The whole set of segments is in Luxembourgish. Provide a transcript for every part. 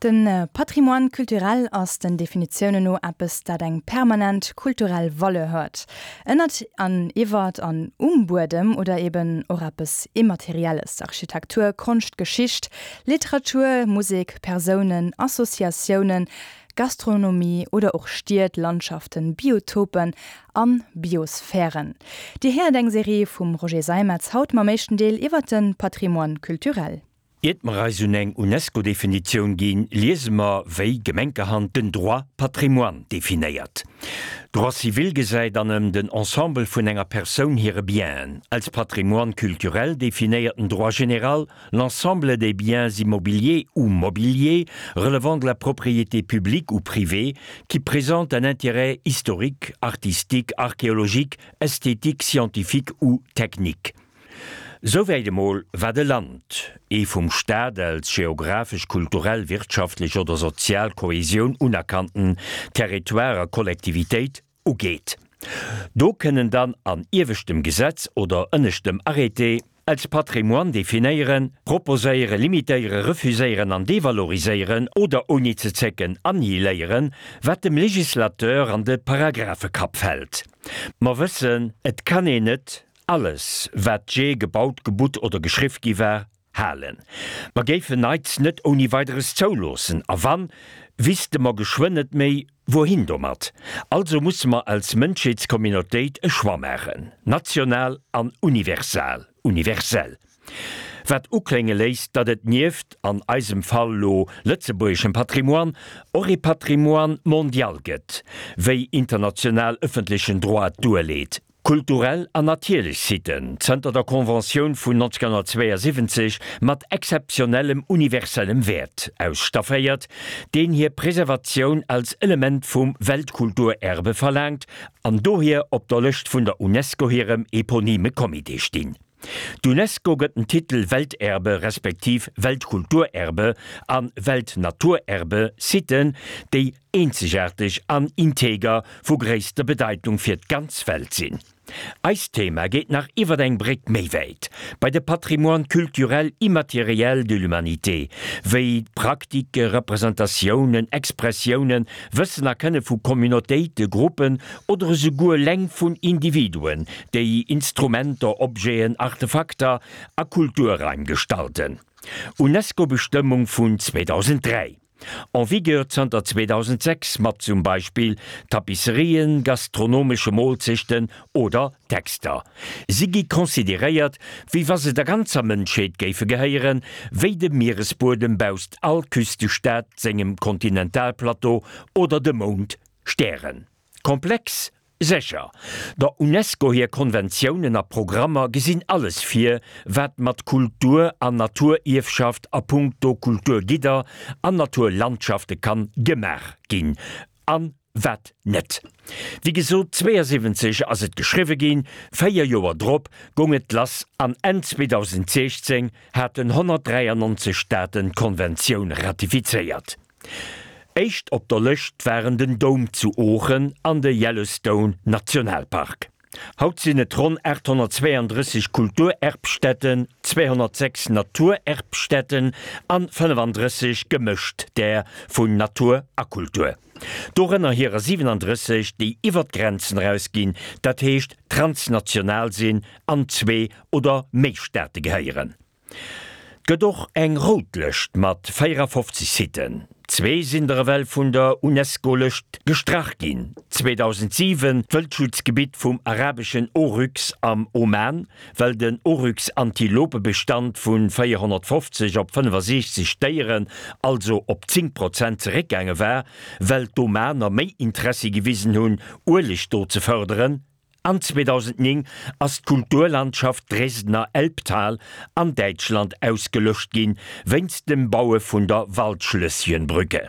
De Patrimoine culturel ass den Definitiounen no eppes, dat eng permanent kulturell Valeur huet, ënnert an iwwert an um Buedem, oder eben och eppes Immaterielles, Architektur, Konscht, Geschicht, Literatur, Musek, Persounen, Associatiounen, Gastronomie oder och Stied, Landschaften, Biotopen an Biosphären. Dir héiert eng Serie vum Roger Seimetz, haut mam éischten Deel iwwert de Patrimoine culturel. Iert mer eis un eng UNESCO-Definitioun ginn, liese mer, wéi gemenkerhand den Droit patrimoine definéiert. Droit civil gesäit an ëm den Ensemble vun enger Persoun hire Bienen. Als Patrimoine culturel definéiert den Droit général l'ensemble des biens immobiliers ou mobiliers relevant de la propriété publique ou privée qui présentent un intérêt historique, artistique, archéologique, esthétique, scientifique ou technique. Souwäit emol, wat e Land, ee vum Staat als geographesch, kulturell, wirtschaftlech oder sozial Kohesioun unerkannten Territoire a Kollektivitéit, ugeet. Do kënnen dann an ieweschtem Gesetz oder ënneschtem Arrêté als Patrimoine definéieren, proposéieren, limitéieren, refuséieren an devaloriséieren oder ouni ze zécken annihiléieren, wat dem Législateur an de Paragraphekapp fält. Mer wëssen, et kann een net Alles, wat jee gebaut, gebutt oder geschriff gi war, halen. Mer géifen Neits net ouni Weideres zouloossen, a wann, wisste mer geschwënn net méi, wouhin domat. Also musse mer als Mënschheetscommunautéit e Choix maachen, national an universal, universell. Wat uklénge léisst, datt et nieft, an eisem Fall lo, lëtzebuergeschem Patrimoine, och ee Patrimoine mondial gëtt, wéi international ëffentlechen Droit duerleet. Kulturell an natierlech Siten, zënter der Conventioun vun 1972 mat exzeptionellem universellem Wäert ausstafféiert, deen hir Preservatioun als Element vum Weltkulturerbe verlaangt an dohier op der Lëscht vun der UNESCO hirem eponyme Comité stinn. D'UNESCO gëtt den Titel Welterbe respektiv Weltkulturerbe a Weltnaturerbe Siten, déi eenzegaarteg an integer vu gréisster Bedeitung fir d'ganz Welt sinn. Eist Thema geet nach iwwer eng Bréck méi wäit, bei de Patrimoine culturel immatériel de l'humanité, wéi d'Praktike, Representatiounen, Expressiounen, Wëssen a Kënne vu Communautéite, Gruppen oder esouguer leng vun Individuen, déi Instrumenter, Objeten, Artefakter a Kulturraim gestalten. UNESCO-Bestëmmung vun 2003. En vigueur zanter 2006 mat zum Beispill Tapisserien, gastronomesche Moolzechten oder Texter. Si gi consideréiert, wéi wa se der ganzer Mënschheet géife gehéieren, wéi de Mieresbuedem bausst all Küstestaat sengem Kontinentalplateau oder de Mound Stären. Komplex? Sécher. Der Unesco hir Konventiounen a Programmer gesinn alles vir, wat mat Kultur an Naturierfschaft a punkto Kulturgidder an Naturlandschafte kann gemaach ginn an wat net. Wéi gesot, 72 ass et geschriwwe ginn, 4 Joer drop goung et lass an Enn 2016 haten 193 Staaten d'Konventioun ratifizéiert. Éischt op der Lëscht waren den Doum zu Oochen an de Yellowstone Nationalpark. Haut sinn et ronn 832 Kulturerbstätten, 206 Naturerbstätten an 35 gemëscht där vun Natur a Kultur. Dorënner hirer 37, déi iwwer d'Grenzen erausginn, dat heescht transnational sinn an zwee oder méi Staate gehéieren. 't gëtt och eng rout Lëscht mat 54 Siten. Zwee sinn der ewell vun der UNESCO-Lëscht gestrach ginn, 2007 d'Wëldschutzgebitt vum arabeschen Oryx am Oman, well den Oryx-Antilopebestand vu 450 op 65 Déieren, also op 10 Prozent zeréckgaange war, well d'Omaner méi Interessi gewisen hunn, Ueleg do ze fërderen. An 2009 ass d'Kulturlandschaft Dresdner Elbtal an Däitschland ausgelöscht ginn, wéinst dem Baue vun der Waldschlösschenbrücke.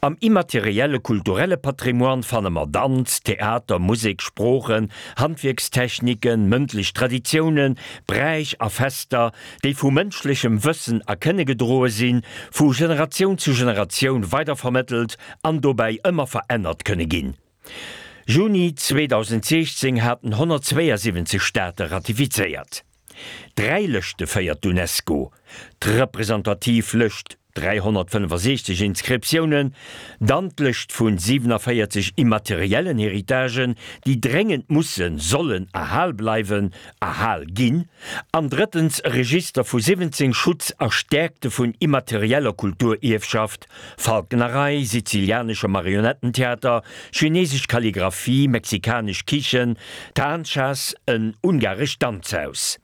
Am immaterielle kulturelle Patrimoine fanne mer Danz, Theater, Musek, Sproochen, Handwierkstechniken, mëndlech Traditiounen, Bräich a Fester, déi vu mënschlechem Wëssen a Kënne gedroe sinn, vu Generatioun zu Generatioun weidervermëttelt an dobäi ëmmer verännert kënne ginn. Juni 2016 haten 172 Staate ratifizéiert. Dräi Lëschte féiert d'UNESCO, d'representativ Lëscht. 365 Inscriptiounen, dann d'Lëscht vun 47 immateriellen Héritagen, déi dréngend mussen, sollen erhal bleiwen, erhal ginn, an drëttens e Register vu 17 Schutz a Stäerkte vun immaterieller Kulturierfschaft, Falknerei, sizilianesche Marionettentheater, chinesesch Kalligraphie, mexikanesch Kichen, Tanchas, en ungarescht Danzhaus.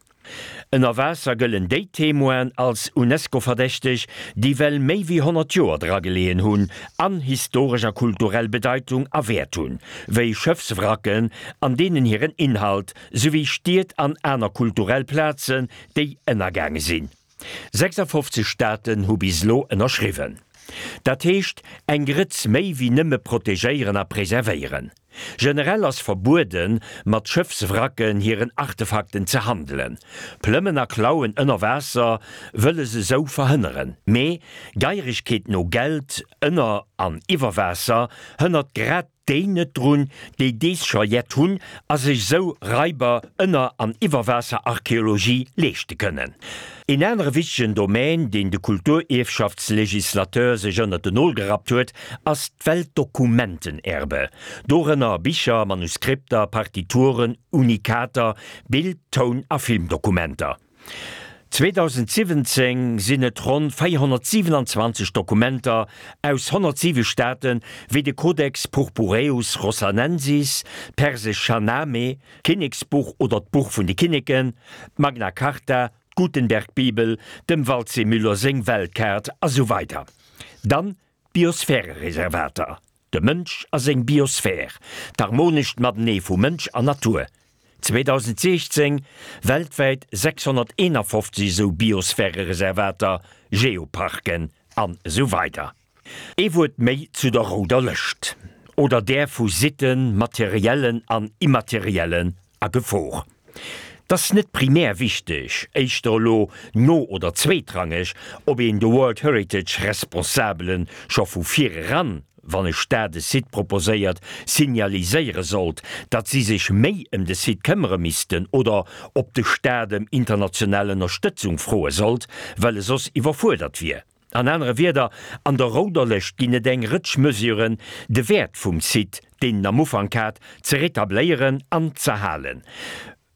Ënner Waasser gëllen déi Témoinen als UNESCO-verdächteg, déi well méi wéi 100 Joer dra geleeën hunn an historesch a kulturell Bedeitung a Wäert hunn, wéi Schëffswracken an deenen hiren Inhalt, souwéi Stied an aner kulturell Plazen, déi ënnergaange sinn. 56 Staaten hu bis elo ënnerschriwwen. Dat heescht eng Grëtz méi wéi nëmme protegéieren a preservéieren. Generell ass verbueden, mat Schëffswracken hiren Artefakten ze handelen. Plëmmen a Klauen ënner Waasser wëlle se sou verhënneren. Mee Geieregkeet no Geld ënner an iwwer Waasser hënnert grad déi net drun, déi dees scho jett hunn a sech sou Raiber ënner an Iwwerwaasserarcheologie leeschte kënnen. Een anere wichtegen Domän, deen de Kulturierfschaftslegislateur sech ënnert den Nol gerappt huet, ass d'Weltdokumentenerbe, dorënner Bicher, Manuskripter, Partituren, Unikater, Bild-, Toun a Filmdokumenter. 2017 sinn et ronn 427 Dokumenter aus 107 Staaten, wéi de Codex Purpureus Rossanensis, d'persesch Shahnameh, d'Kinneksbuch oder d'Buch vun de Kinneken, d'Magna Carta, d'Gutenberg-Bibel, dem Waldseemüller seng Weltkaart a sou weider. Dann D'Biosphärereservater, de Mënsch a seng Biosphär, d'harmonescht Matenee vu Mënsch an Natur. 2016 weltwäit 651 esou Biosphärereservater, Geoparken an esou weider. Ee Wuert méi zu der rouder Lëscht, oder där vu Sitten, materiellen an immateriellen, a Gefor. 't ass net primär wichteg, éischter elo no oder zweetrangeg, ob een de World Heritage Responsabele scho vu vir eran, wann e Staat e Site proposéiert, signaliséiere sollt, datt si sech méi ëm de Site këmmere missten oder ob de Staat ëm international Ënnerstëtzung froe sollt, well e soss iwwerfuerdert wier. An anere Wierder, an der rouder Lëscht ginn et eng Rëtsch Mesuren, de Wäert vum Site, deen en am Ufank hat, ze retabléieren an z'erhalen.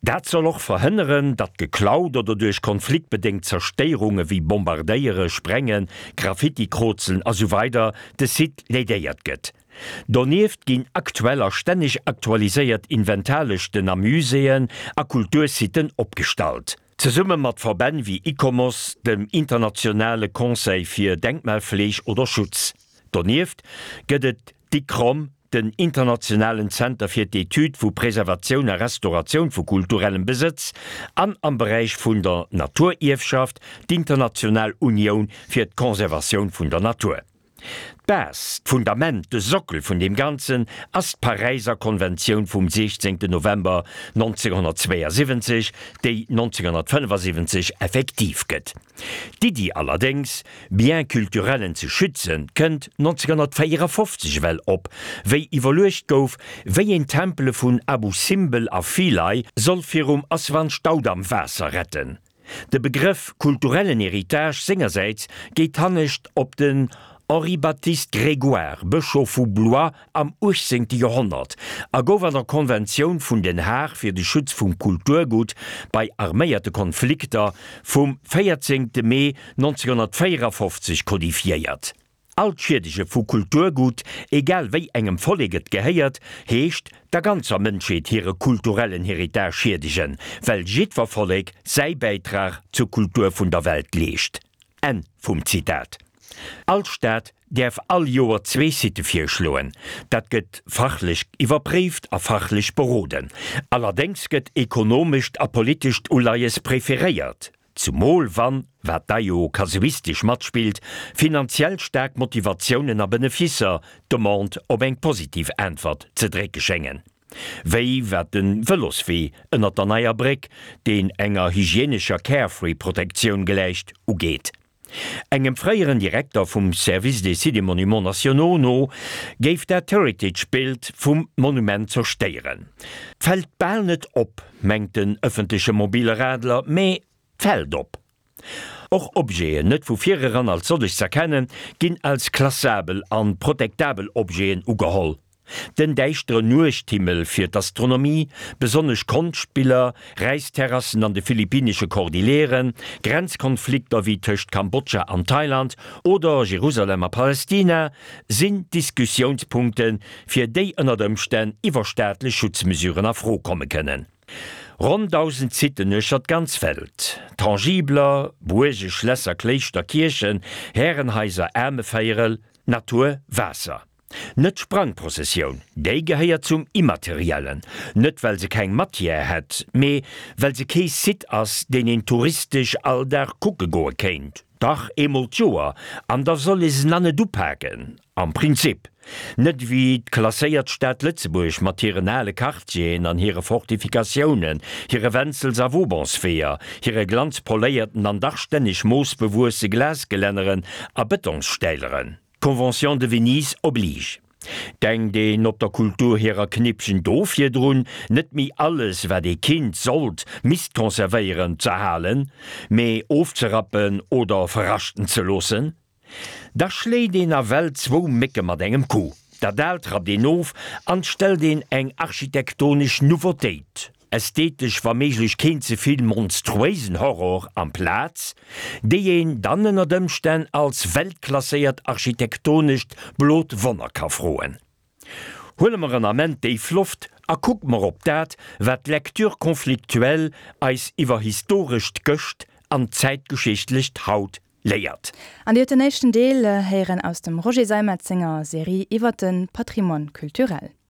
Dat soll och verhënneren, datt geklaut oder duerch konfliktbedéngt Zerstéierunge wéi Bombardéiere, Sprengen, Graffiti-Krozelen a sou weider de Site lädéiert gëtt. Donieft ginn aktuell a stänneg aktualiséiert Inventarlëschten a Muséeën a Kultursiten opgestallt. Zesumme mat Verbänn wéi ICOMOS, dem internationale Conseil fir Denkmalfleeg oder Schutz. Donieft gëtt et d'ICCROM, den internationalen Zenter fir d'Etüd vu Preservatioun a Restauratioun vu kulturellem Besëtz, an am Beräich vun der Naturierfschaft d'International Unioun fir d'Conservatioun vun der Natur. D'Base, d'Fundament, de Sockel vun deem Ganzen ass d'Paräiser Konventioun vum 16 November 1972, déi 1975 effektiv gëtt. D'Iddi allerdéngs, Biens culturellen ze schützen, kënnt 1954 ewell op, wéi iwwerluecht gouf, wéi een d'Tempele vun Abu Simbel a Philae soll virum Aswan-Staudamm-Waasser retten. De Begrëff kulturellen Héritage sengersäits geet hannescht op den Henri-Baptiste Grégoire, Bëschof vu Blois am 18. Joerhonnert, a gouf an der Konventioun vun Den Haag fir de Schutz vum Kulturgutt bei arméierte Konflikter vum 14. Mee 1954 kodifiéiert. All d'Schiedege vu Kulturgut, egal wéi engem Vollek et gehéiert, heescht der ganzer Mënschheet hire kulturellen Héritage schiedegen, well jiddwer Vollek säi Bäitrag zur Kultur vun der Welt leescht. Enn vum Zitat. All Staat däerf all Joer zwee Sitë virschloen. Dat gëtt fachlech iwwerpréift a fachlech beroden. Allerdéngs gëtt ekonomescht a politescht Uleies preferéiert. Zumol wann, wat da jo kasuistesch matspillt, finanziell staark Motivatiounen a Benefisser d'Demande op eng positiv Äntwert ze drécke schéngen. Wéi wat de Vëloswee ënnert der neier Bréck, deen enger hygienescher Carefree-Protektioun gläicht, ugeet. Engem fréieren Direkter vum Service des Sites et Monuments Nationaux no géif dat d'Heritage-Bild vum Monument zerstéieren. Fält bal net op, mengt den ëffentleche mobile Radler, mee fält op. Och Objeten, net vu vireran als sollech z'erkennen, ginn als klassabel an protektabel Objeten ugeholl. Den däischteren Nuechthimmel fir d'Astronomie, besonnesch Konschtbiller, Räisterrassen an de philippinesche Kordilleren, Grenzkonflikter wéi tëscht Kambodscha an Thailand oder Jerusalem a Palestina sinn Diskussiounspunkten, fir déi ënnert Ëmstänn iwwerstaatlech Schutzmesuren a Fro komme kënnen. Ronn 1.000 Siten uechter d'ganz Welt, Tangibler, Buerge, Schlässer, Kléischter, Kierchen, Härenhaiser, Aarmevéierel, Natur, Waasser. Net d'Sprangprozessioun, déi gehéiert zum Immateriellen, net well se keng Matière hätt, mee well se kee Site ass, deen een touristesch all Dag kucke goe kéint. Dach, eemol d'Joer, an da soll ee se na net upaken, am Prinzip. Net ewéi d'klasséiert Stad Lëtzebuerg mat hiren ale Quartieren an hire Fortifikatiounen, hire Wenzels a Vaubansweeër, hire glanzpoléierten an dach stänneg moosbewuesse Glasgelänneren a Betonsstäileren. D'Convention de Venise oblige. Denkt een op der Kultur hirer Knippchen do virdrun, net méi alles, wat ee kinnt, sollt, misst conservéieren, z'erhalen, mee ofzerappen oder verraschten ze loossen? Da schléit een nawell zwou Mécke mat engem Coup. Dat Aalt rappt een of an 't stellt een eng architektonesch Nouveautéit, ästhetesch wa méiglech keen ze vill monstruéisen Horror, amplaz, déi een dann ënnert Ëmstänn als weltklasséiert architektonescht blot Wonner ka froen. Huele mer en Ament déif Loft a kucke mer op dat, wat d'Lecture conflictuelle eis iwwer historescht Gëscht an zäitgeschichtlecht Haut léiert. An Dir hutt den éischten Deel héieren aus dem Roger Seimetz senger Serie iwwer de Patrimoine culturel.